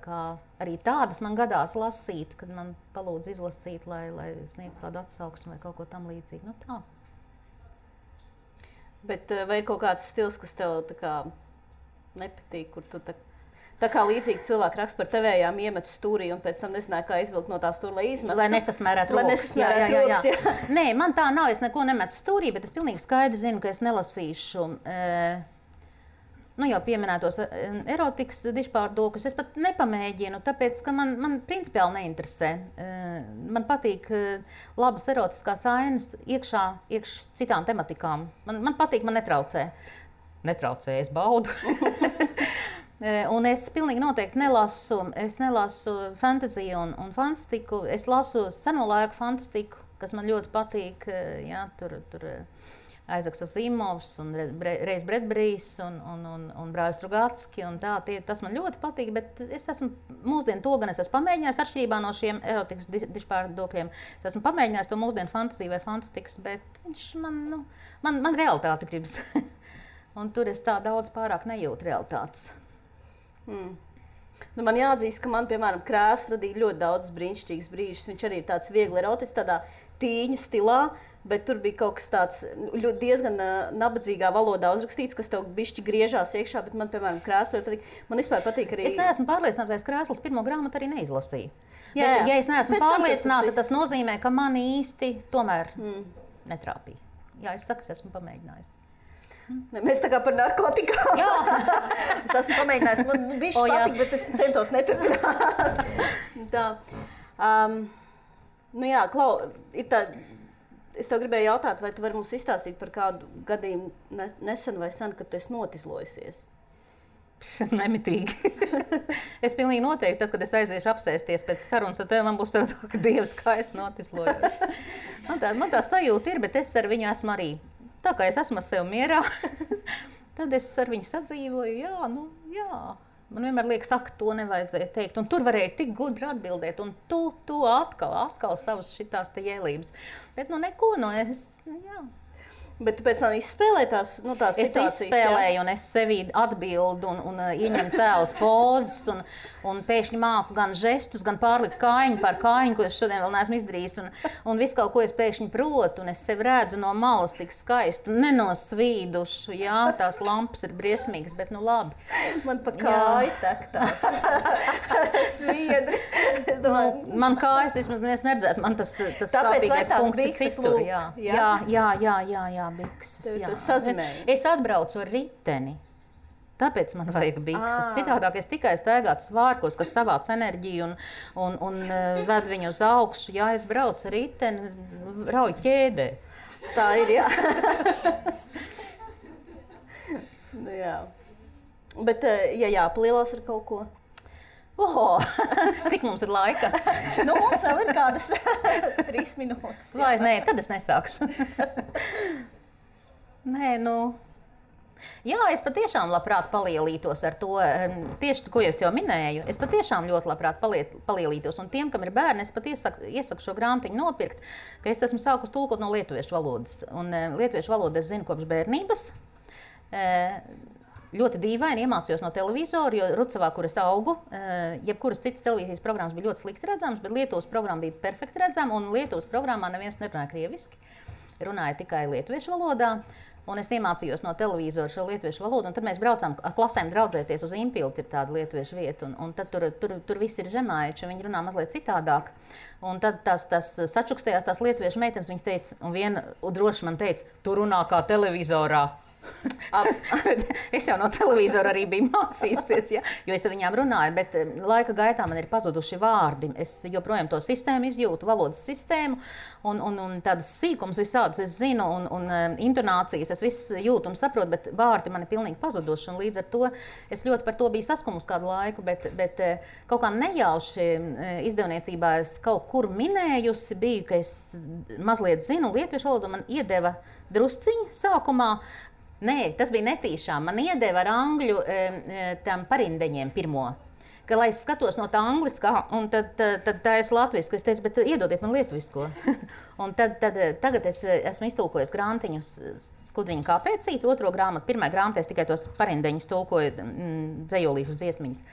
kā arī tādas man gadās lasīt, kad man palūdz izlasīt, lai sniegtu kādu atsauksmi vai kaut ko tam līdzīgu. Nu, tā. Bet vai ir kaut kāds stils, kas tev tā kā nepatīk, kur tu tā kā līdzīgi cilvēki raksta par tevējām iemetu stūrī un pēc tam nezināja, kā izvilkt no tā stūra, lai izmestu? Lai nesasmērētu rokas. Jā. Nē, man tā nav, es neko nemetu stūrī, bet es pilnīgi skaidri zinu, ka es nelasīšu jau pieminētos erotikas dižpārdokļus. Es pat nepamēģinu, tāpēc, ka man principiāli neinteresē. Man patīk labas erotiskās ainas iekš citām tematikām. Man patīk, man netraucē. Netraucē, es baudu. Un es pilnīgi noteikti nelasu fantaziju un fantastiku. Es lasu seno laiku fantastiku, kas man ļoti patīk. Jā, tur Aizaks Asimovs un Reis Bredberijs un Brāļs Strugatski un tā, tas man ļoti patīk, bet es esmu mūsdienu to gan es esmu pamēģinājis atšķirībā no šiem erotikas dižpārdokļiem. Es esmu pamēģinājis to mūsdienu fantaziju vai fantastikas, bet viņš man realitāte gribas. Un tur es tā daudz pārāk nejūtu realitātes. Nu, man jāatzīst, ka man, piemēram, krēsls radīja ļoti daudz brīnišķīgas brīžus. Viņš arī ir tāds viegli erotisks, tādā tīņu stilā, bet tur bija kaut kas tāds diezgan nabadzīgā valodā uzrakstīts, kas tev bišķi griežās iekšā, bet man, piemēram, krēsls ļoti patīk. Man vispār patīk arī... Es neesmu pārliecināta, vai es krēsls pirmo grāmatu arī neizlasīju. Jā. Bet, ja es neesmu pārliecināta, tas nozīmē, ka man īsti tomēr netrāpīja. Jā, es saku, es esmu pamēģinājusi. Mēs tā kā par narkotikām. Jā. Es esmu pamēģinājis, man bišķi patīk, bet es centos neturpināt. Tā. Nu jā, Klau, ir tā... Es tev gribēju jautāt, vai tu vari mums izstāstīt par kādu gadījumu nesen vai sen, kad tu esi notizlojusies? Nemitīgi. Es pilnīgi noteikti, tad, kad es aiziešu apsēsties pēc sarunas ar tevi, man būs tā, ka Dievs skaisti notislojos. Man tā sajūta ir, bet es ar viņu esmu arī. Tā kā es esmu ar sevi mierā, tad es ar viņu sadzīvoju, jā. Man vienmēr liekas, ak, to nevajadzēja teikt. Un tur varēja tik gudri atbildēt, un tu atkal savas šitās te jēlības. Bet neko, jā. Bet tu pēc tam izspēlēji tās situācijas? Es izspēlēju, un es sevi atbildu un ieņemu cēlas pozas, un pēkšņi māku gan žestus, gan pārlikt kājiņu par kājiņu, ko es šodien vēl neesmu izdarījis, un visu kaut ko es pēkšņi protu, un es sevi redzu no malas tik skaistu, nenosvīdušu, jā, tās lampas ir briesmīgas, bet nu labi. Man pa kāju tek tās sviedri. Man kājas vismaz neviens neredzētu, man tas sāpīgais punkts ir citur, jā. Bikses, jā. Es atbraucu ar riteni, tāpēc man vajag bikses. Citādāk es tikai staigātu svārkos, kas savāc enerģiju un ved viņu uz augšu. Jā, es braucu ar riteni, rauju ķēdē. Tā ir, jā. Nu, jā. Bet, ja jāpalielās ar kaut ko? Cik mums ir laika? Mums vēl ir kādas 3 minūtes. Vai nē, tad es nesākšu. Nē, jā, es patiešām labprāt palielītos ar to, tieši ko es jau minēju, es patiešām ļoti labprāt palielītos, un tiem, kam ir bērni, es pat iesaku šo grāmatiņu nopirkt, ka es esmu sākus tulkot no lietuviešu valodas, un lietuviešu valodu es zinu kopš bērnības. Ļoti dīvaini iemācījos no televizora, jo Rucavā, kur es augu, jebkuras citas televīzijas programmas bija ļoti slikti redzamas, bet Lietuvas programma bija perfekti redzama, un Lietuvas programmā neviens nerunāja krieviski, runāja tikai lietuviešu valodā. Un es iemācījos no televizora šo lietuviešu valodu, un tad mēs braucām ar klasēm draudzēties uz Impilti, ir tāda lietuviešu vieta, un tad tur viss ir žemaiči, viņi runā mazliet citādāk. Un tad tās sačukstējās tās lietuviešu meitenes, viņas teica, un viena droši man teica, tu runā kā televizorā. Es jau no televizora arī biju mācījusies, ja, jo es ar viņām runāju, bet laika gaitā man ir pazuduši vārdi. Es joprojām to sistēmu izjūtu, valodas sistēmu, un tādas sīkums visādus es zinu, un intonācijas es viss jūtu un saprotu, bet vārdi man ir pilnīgi pazuduši, un līdz ar to es ļoti par to biju saskumusi kādu laiku, bet kaut kā nejauši izdevniecībā es kaut kur minējusi biju, ka es mazliet zinu lietuviešu valodu, man iedeva drusciņi sākumā. Nē, tas bija netīšām. Man iedeva ar angļu tam parindeņiem pirmo. Ka, lai es skatos no tā angliskā, un tad tā es latviski, es teicu, bet iedodiet man lietuvisko. Un tagad es esmu iztulkojis grāmatiņus Skudriņa kāpēcīt, otro grāmatu. Pirmajā grāmatā es tikai tos parindeņus tulkoju, dzejolīšus dziesmiņas.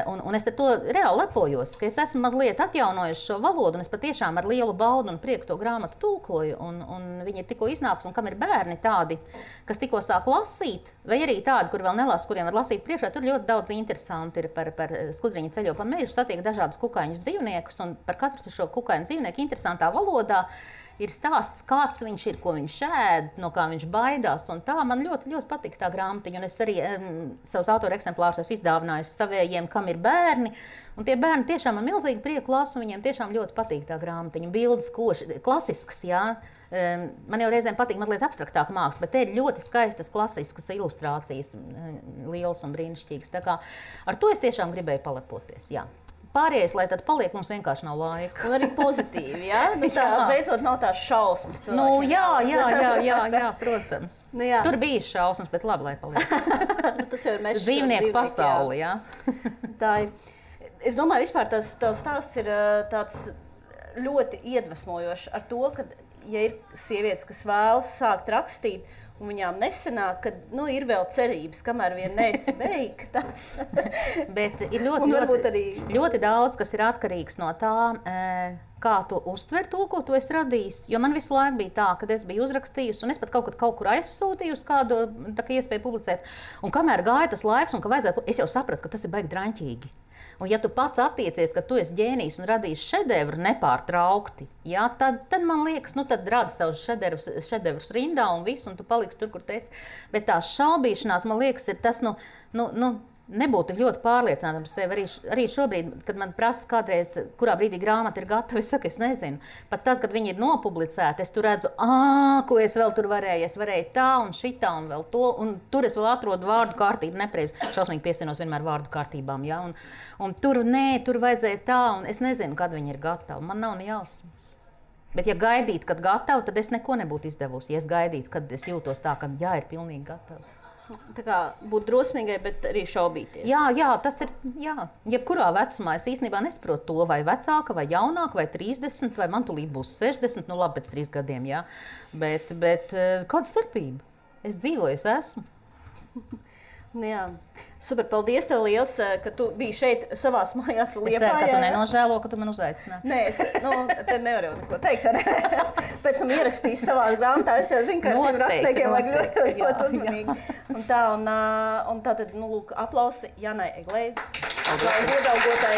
Un es ar to reāli lepojos, ka es esmu mazliet atjaunojuši šo valodu, un es patiešām ar lielu baudu un prieku to grāmatu tulkoju, un viņi ir tikko iznākusi, un kam ir bērni tādi, kas tikko sāk lasīt, vai arī tādi, kur vēl nelasa, kuriem var lasīt priekšā, tur ļoti daudz interesanti ir par Skudriņa ceļo pa mežu, satiek dažādus kukaiņus dzīvniekus, un par katru šo kukaiņu dzīvnieku interesantā valodā ir stāsts, kāds viņš ir, ko viņš ēd, no kā viņš baidās. Un tā man ļoti, ļoti patīk tā grāmatiņa. Un es arī savus autora eksemplārus esmu izdāvinājis savējiem, kam ir bērni. Un tie bērni tiešām ar milzīgu prieku lasu, viņiem tiešām ļoti patīk tā grāmatiņa. Bildes koši, klasiskas, jā. Man jau reizēm patīk mazliet abstraktāka māksla, bet te ir ļoti skaistas, klasiskas ilustrācijas, lielas un brīnišķīgas. Tā kā ar to es tiešām gribēju palepoties, jā. Pārējais, lai tad paliek, mums vienkārši nav laika. Un arī pozitīvi, jā? Nu tā, beidzot nav tās šausmas cilvēkiem. Nu, jā, protams. Nu, jā. Tur bija šausmas, bet labi, lai paliek. Nu, tas jau ir mežs. Dzīvnieku pasauli, jā. Tā ir. Es domāju, vispār tās stāsts ir tāds ļoti iedvesmojošs ar to, ka, ja ir sievietes, kas vēlas sākt rakstīt, un viņām nesanāk, ka ir vēl cerības, kamēr vien neesi beigta. Bet ir ļoti daudz, kas ir atkarīgs no tā, kā tu uztver to, ko tu esi radījis. Jo man visu laiku bija tā, kad es biju uzrakstījusi, un es pat kaut kur aizsūtījusi kādu iespēju publicēt. Un kamēr gāja tas laiks, un ka vajadzētu, es jau sapratu, ka tas ir baigi draņķīgi. Un ja tu pats attiecies, ka tu esi ģēnijs un radīsi šedevru nepārtraukti, jā, tad man liekas, tad rada savus šedevrus rindā un visu, un tu paliksi tur, kur tu esi. Bet tās šaubīšanās, man liekas, ir tas, nebūtu ļoti pārliecināta par sevi. Arī šobrīd, kad man prasa kādreiz, kurā brīdī grāmata ir gatava, es saku, es nezinu. Pat tad, kad viņi ir nopublicēti, es tur redzu, ko es vēl tur varēju. Es varēju tā un šitā un vēl to, un tur es vēl atrodu vārdu kārtību nepreiz. Šausmīgi piesienos vienmēr vārdu kārtībām, jā. Un tur vajadzēja tā, un es nezinu, kad viņi ir gatavi. Man nav ne jausmas. Bet ja gaidītu, kad gatavi, tad es neko nebūtu izdevusi. Ja es gaidītu, kad es jūtos tā, ka jā, ir pilnīgi gatavs. Tā kā būt drosmīgai, bet arī šaubīties. Jā, tas ir, jebkurā vecumā es īstenībā nesaprotu to, vai vecāka, vai jaunāka, vai 30, vai man tūlīt būs 60, labi, pēc 3 gadiem, jā. Bet kāda starpība? Es dzīvoju, es esmu. Jā. Super, paldies tev liels, ka tu biji šeit savās mājās Liepājā. Es ceru, ka tu nenožēlo, ka tu man uzaicināji. Nē, te nevaru neko teikt. Pēc tam ierakstīs savās grāmatā, es jau zinu, ka ar tiem rakstniekiem vajag ļoti uzmanīgi. Un tā tad, lūk, aplausi Janai Eglei, iedaugotai.